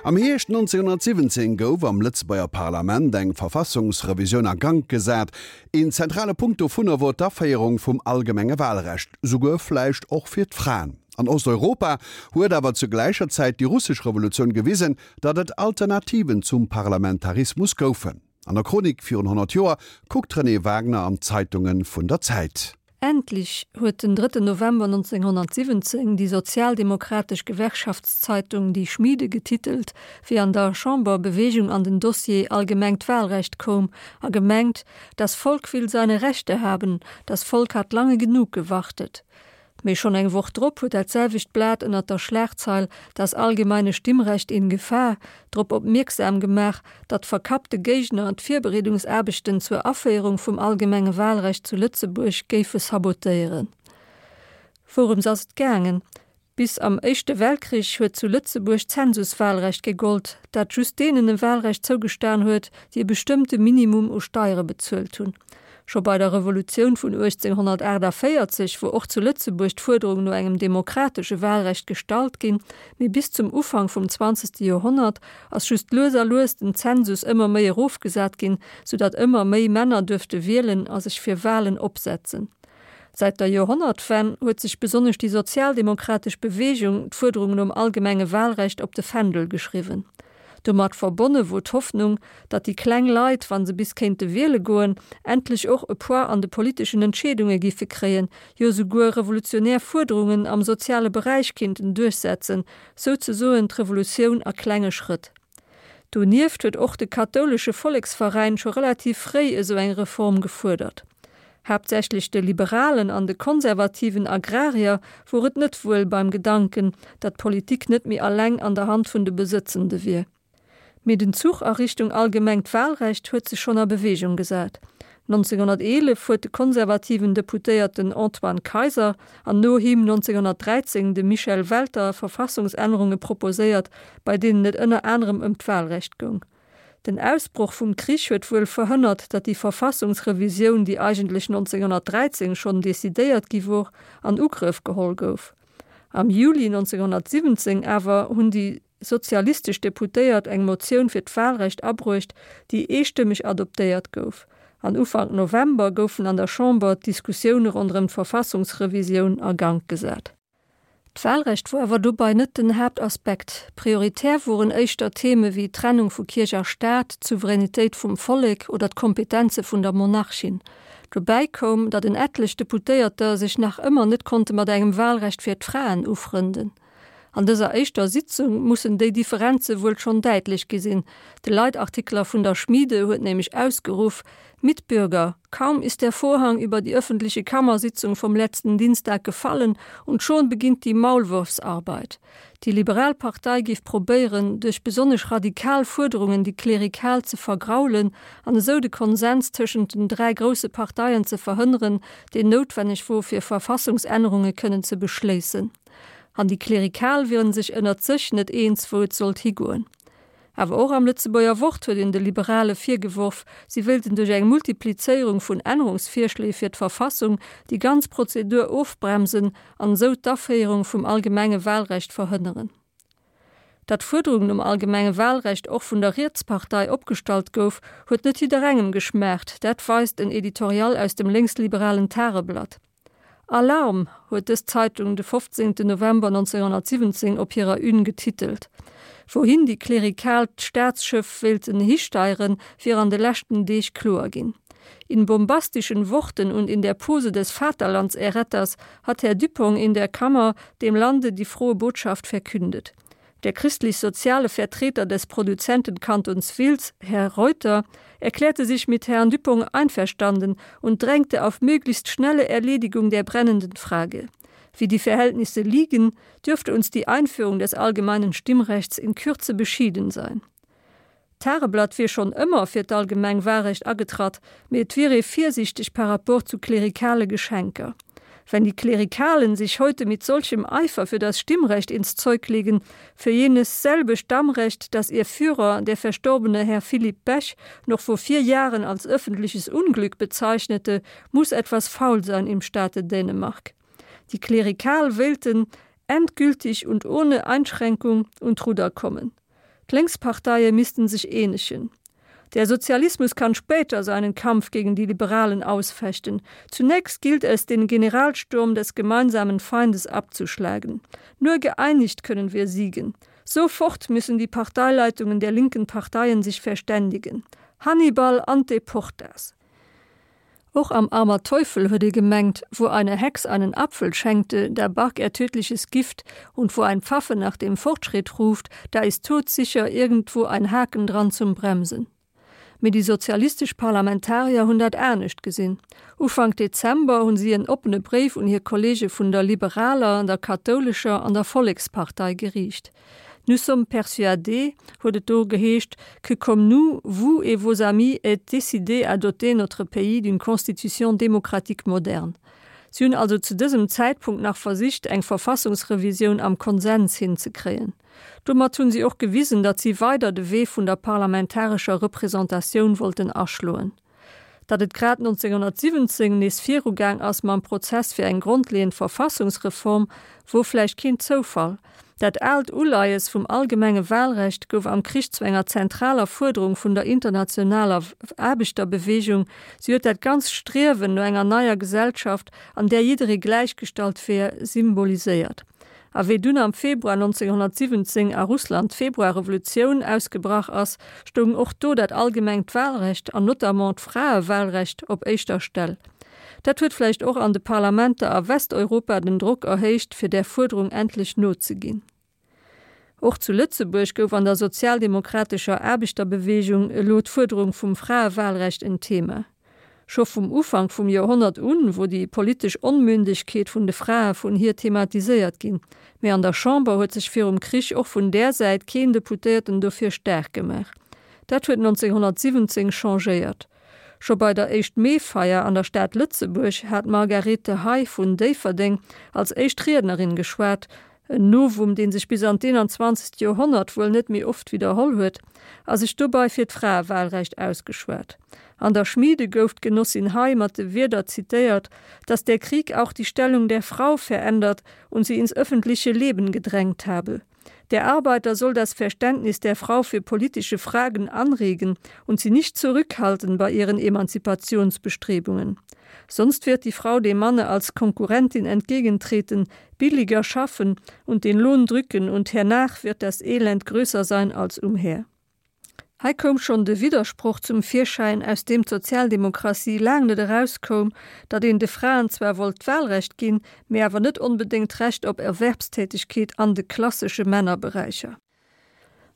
Am Hierscht 1917 gouf am Lëtzebuerger Parlament eng Verfassungsrevisioun a Gank gesat. Een zentrale Punkt dovunner wor d'Aféierung vum allgemenge Wahlrecht, souguer vläicht och fir d'Fraen. An Osteuropa huet awer zu gläicher Zäit déi russesch Revolutioun gewisen, datt et Alternativen zum Parlamentarismus goufen. An der Chronik virun 100 Joer kuckt d'Renée Wagner an d'Zeitunge vun der Zäit. Endlich huet den drëtten November 1917 déi sozialdemokratesch Gewerkschaftszeitung Die Schmiede getitelt, wéi an der Chamber Bewegung an den Dossier allgemengt Wahlrecht koum, a gemengt, Das Volk will seine Rechte haben, das Volk hat lange genug gewartet. Mee schonn eng Woch drop huet dat selwecht Blat ënnert der Schlagzeil Das allgemeine Stimmrecht in Gefahr drop opmierksam gemaach, datt verkappte Géigner d'Virbereedungsaarbechten zur Aféierung vum allgemenge Wahlrecht zu Lëtzebuerg géife sabotéieren. Wourëms ass et gaangen? Bis am Éischte Weltkrich huet zu Lëtzebuerg d'Zensuswahlrecht gegollt, dat just deenen e Wahlrecht zougestan huet, déi e bestëmmte Minimum u Steiere bezuelt hunn. Scho bei der Revolutioun vun 1848 wor och zu Lëtzebuerg d'Fuerderung no engem demokratesche Wahlrecht gestallt ginn, mee bis zum Ufank vum zwanzegste Joerhonnert ass just lues a lues den Zensus ëmmer méi erofgesat ginn, soudatt ëmmer méi Männer duerfte wielen a sech fir Wahlen opsetzen. Säit der Joerhonnertwenn huet sech besonnesch déi sozialdemokratesch Beweegung d'Fuerderung nom allgemenge Wahlrecht op de Fändel geschriwwen. Domat verbonne wor d'Hoffnung, datt déi kleng Leit, wa se bis kéinte wiele goen, endlech och e Poids an de politeschen Entscheedunge giffe kréien, jo souguer revolutionär Fuerderungen am soziale Beräich kinnten duerchsetzen, souzesoen d'Revolutioun a klenge Schrëtt. Donieft huet och de kathoulesche Volleksveräin scho relativ fréi esou eng Reform gefuerdert. Haaptsächlech de liberalen an de konservativen Agrarier wor et net wuel beim Gedanken, datt d'Politik net méi alleng an der Hand vun de Besëtzende wier. Mee den Zuch a Richtung allgemengt Wahlrecht huet sech schonn a Bewegung gesat. 1911 huet de konservativen Deputéierten Antoine Kayser an no him 1913 de Michel Welter Verfassungsännerunge proposéiert, bei deenen et ënner anerem ëm d'Wahlrecht goung. Den Ausbroch vum Krich huet wuel verhënnert, datt déi Verfassungsrevisioun, déi eigentlech 1913 schonn decidéiert gi wor, an Ugrëff geholl gouf. Am Juli 1917 awer hunn déi sozialistesch Deputéiert eng Motioun fir d'Wahlrecht abruecht, déi eestëmmeg adoptéiert gouf. An Ufank November goufen an der Chamber d'Diskussioune ronderëm d'Verfassungsrevisioun a Gank gesat. D'Wahlrecht wor awer dobei net den Haaptaspekt. Prioritär woren éischter Theme wéi d'Trennung vu Kierch a Staat, d'Souveränitéit vum Vollek oder d'Kompetenze vun der Monarchin. Dobäi koum, datt en etlech Deputéierter sech nach ëmmer net konnte mat engem Wahlrecht fir d'Fraen ufrënden. An dëser éischter Sitzung mussen déi Differenze wuel schonn däitlech gi sinn. De Leitartikler vun der Schmiede huet nämlech ausgeruff, Mitbürger, kaum ist der Vorhang über die öffentliche Kammersitzung vom letzten Dienstag gefallen und schon beginnt die Maulwurfsarbeit. Déi liberal Partei géif probéieren, duerch besonnesch radikal Fuerderungen déi Klerikal ze vergraulen an esou de Konsens tëschent den 3 grousse Parteien ze verhënneren, deen noutwenneg wor fir Verfassungsännerunge kënnen ze beschléissen. An déi Klerikal wieren sech ënnert sech net eens, wou et sollt higoen. Awer och am Lëtzebuerger Wort huet een de Liberale virgeworf, si wéilten duerch eng Multiplizéierung vun Ännerungsvirschléi fir d'Verfassung déi ganz Prozedur ofbremsen an esou d'Aféierung vum allgemenge Wahlrecht verhënneren. Datt d'Fuerderung nom allgemenge Wahlrecht och vun der Rietspartei opgestallt gouf, huet net jidderengem geschmaacht, dat weist en Editorial aus dem lénksliberalen Tageblatt. Alarm! huet dës Zeitung de 15 November 1917 op hirer Une getitelt. Wouhin déi Klerikal d'Staatsschëff wéilten histeieren, wier an de leschten Deeg kloer ginn. In bombastischen Worten und in der Pose des Vaterlandserretters hat Herr Dupong in der Kammer dem Lande die frohe Botschaft verkündet. Der christlich-soziale Vertreter des Produzentenkantons Wiltz, Herr Reuter, erklärte sich mit Herrn Dupong einverstanden und drängte auf möglichst schnelle Erledigung der brennenden Frage. Wie die Verhältnisse liegen, dürfte uns die Einführung des allgemeinen Stimmrechts in Kürze beschieden sein. D'Tageblatt wier schonn ëmmer fir d'allgemeng Wahlrecht agetratt, mee et wier ee virsiichteg par rapport zu klerikale Geschenker. Wenn die Klerikalen sich heute mit solchem Eifer für das Stimmrecht ins Zeug legen, für jenes selbe Stammrecht, das ihr Führer, der verstorbene Herr Philipp Bech, noch vor vier Jahren als öffentliches Unglück bezeichnete, muss etwas faul sein im Staate Dänemark. Die Klerikal wéilten endgültig und ohne Einschränkung un d'Rudder kommen. D'Lénksparteie missten sech eenegen. Der Sozialismus kann später seinen Kampf gegen die Liberalen ausfechten. Zunächst gilt es, den Generalsturm des gemeinsamen Feindes abzuschlagen. Nur geeinigt können wir siegen. Sofort müssen die Parteileitungen der linken Parteien sich verständigen. Hannibal ante portas. Och am Armer Teufel huet ee gemengt, wo eine Hex einen Apfel schenkte, da barg er tödliches Gift, und wo ein Pfaffe nach dem Fortschritt ruft, da ist todsicher irgendwo ein Haken dran zum Bremsen. Mee déi sozialistesch Parlamentarier hunn dat anescht gesinn. Ufank Dezember hunn si en oppene Bréif un hir Kollege vun der liberaler, der kathoulescher an der Vollekspartei geriicht. Nous sommes persuadés, huet et do geheescht, que comme nous, vous et vos amis êtes décidés à doter notre pays d'une constitution démocratique moderne. Si hunn also zu dësem Zäitpunkt nach versicht, eng Verfassungsrevisioun am Konsens hinzekréien. Domat hunn si och gewisen, datt si weider de Wee vun der parlamentarescher Representatioun wollten aschloen. Datt et grad 1917 nees virugaang ass mam Prozess fir eng grondleeënd Verfassungsreform, wor vläicht keen Zoufall. Dat aalt Uleies vum allgemenge Wahlrecht gouf am Krich zu enger zentraler Fuerderung vun der internationaler Aarbechterbewegung. Si huet dat ganzt Striewen no enger neier Gesellschaft, an där jidderee gläichgestallt wär, symboliséiert. A wéi dunn am Februar 1917 a Russland d'Februarrevolutioun ausgebrach ass, stoung och do dat allgemengt Wahlrecht an notamment d'Fraewahlrecht op éischter Stell. Dat huet vläicht och an de Parlamenter a Westeuropa den Drock erhéicht, fir där Fuerderung endlech nozeginn. Och zu Lëtzebuerg gouf an der sozialdemokratescher Aarbechterbewegung elo d'Fuerderung vum Fraewahlrecht en Thema. Scho vum Ufank vum Joerhonnert un wor déi politesch Onmündegkeet vun de Frae vun hir thematiséiert ginn, mä an der Chamber huet sech virum Krich och vun där Säit keen Deputéierten dofir staark gemaach. Dat huet 1917 changéiert. Scho bei der Éischt-Mee-Feier an der Stad Lëtzebuerg hat d'Margarethe Hay vun Déifferdeng als éischt Riednerin geschwat, en Novum, dee sech bis an d'21. Joerhonnert wuel net méi oft widderholl huet, a sech dobei fir d'Fraewahlrecht ausgeschwat. An der Schmiede gouf d'Genossin Hay mat de Wierder zitéiert, dass der Krieg auch die Stellung der Frau verändert und sie ins öffentliche Leben gedrängt habe. Der Arbeiter soll das Verständnis der Frau für politische Fragen anregen und sie nicht zurückhalten bei ihren Emanzipationsbestrebungen. Sonst wird die Frau dem Manne als Konkurrentin entgegentreten, billiger schaffen und den Lohn drücken und hernach wird das Elend größer sein als umher. Hei koum schonn de Widdersproch zum Virschäin, aus deem d'Sozialdemokratie laang net erauskoum, datt een de Fraen zwar wollt d'Wahlrecht ginn, mee awer net onbedéngt d'Recht op Erwerbstätigkeet an de klassesche Männerberäicher.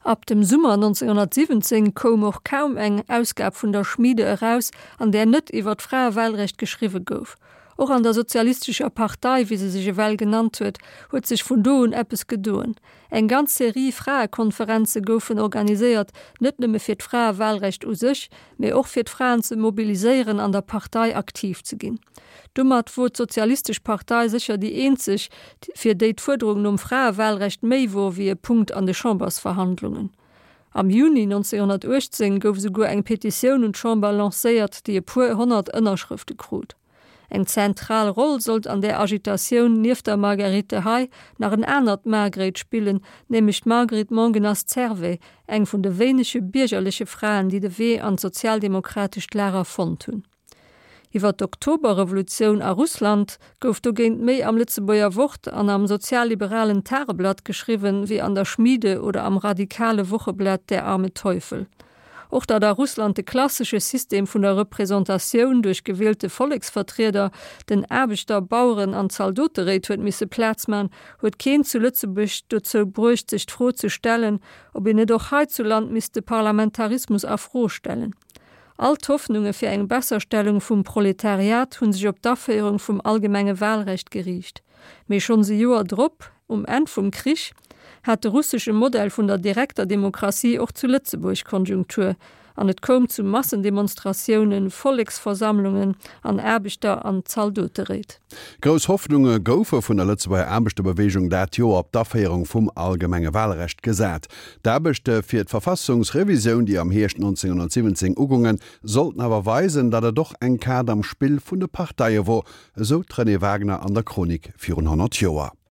Ab dem Summer 1917 koum och kaum eng Ausgab vun der Schmiede eraus, an där net iwwer d'Fraewahlrecht geschriwwe gouf. Och an der Sozialistescher Partei, wéi se sech ewell genannt huet, huet sech vun do un eppes gedoen. Eng ganz Serie Fraekonferenze goufen organiséiert, net nëmme fir d'Fraewahlrecht u sech, mee och fir d'Fraen ze mobiliséieren an der Partei aktiv ze ginn. Domat wor d'Sozialistesch Partei sécher déi eenzeg, fir déi d'Fuerderung nom Fraewahlrecht méi wor wéi e Punkt an de Chambersverhandlungen. Am Juni 1918 gouf esouguer eng Petitioun un d'Chamber lancéiert, déi e puer 100 Ënnerschrëfte krut. Eng zentral Roll sollt an där Agitatioun nieft der Marguerite Hay nach en anert Margréit spillen, nämlech d'Marguerite Mongenast-Servais, eng vun de wéinege biergerleche Fraen, déi de Wee an d'sozialdemokratescht Lager fonnt hunn. Iwwer d'Oktoberrevolutioun a Russland gouf dogéint méi am Lëtzebuerger Wort an am sozialliberalen Tageblatt geschriwwen, wéi an der Schmiede oder am radikale Wocheblat Der arme Teufel. Och datt a Russland de klassesche System vun der Representatioun duerch gewielte Volleksvertrieder den Aarbechter-, Baueren an Zaldoteréit huet misse Plaz man, huet keen zu Lëtzebuerg dozou bruecht sech d'Fro ze stellen, ob een net och heizuland misst de Parlamentarismus a Fro stellen. All d'Hoffnunge fir eng Besserstellung vum Proletariat hu sech op d'Aféierung vum allgemenge Wahlrecht geriicht. Mee schonns e Joer drop, um Enn vum Krich, hat de russesche Modell vun der direkter Demokratie och zu Lëtzebuerg Konjunktur an et koum zu Massendemonstratiounen, Volleksversammlungen an Aarbechter an Zaldoteréit. Grouss Hoffnunge goufe vun der Lëtzebuerger Aarbechterbeweegung dat Joer op d'Aféierung vum allgemenge Wahlrecht gesat. D'Aarbechte fir d'Verfassungsrevisioun, déi am Hierscht 1917 ugoungen, sollten awer weisen, datt et och eng Kaart am Spill vun de Parteie wor, esou d'Renée Wagner an der Chronik virun 100 Joer.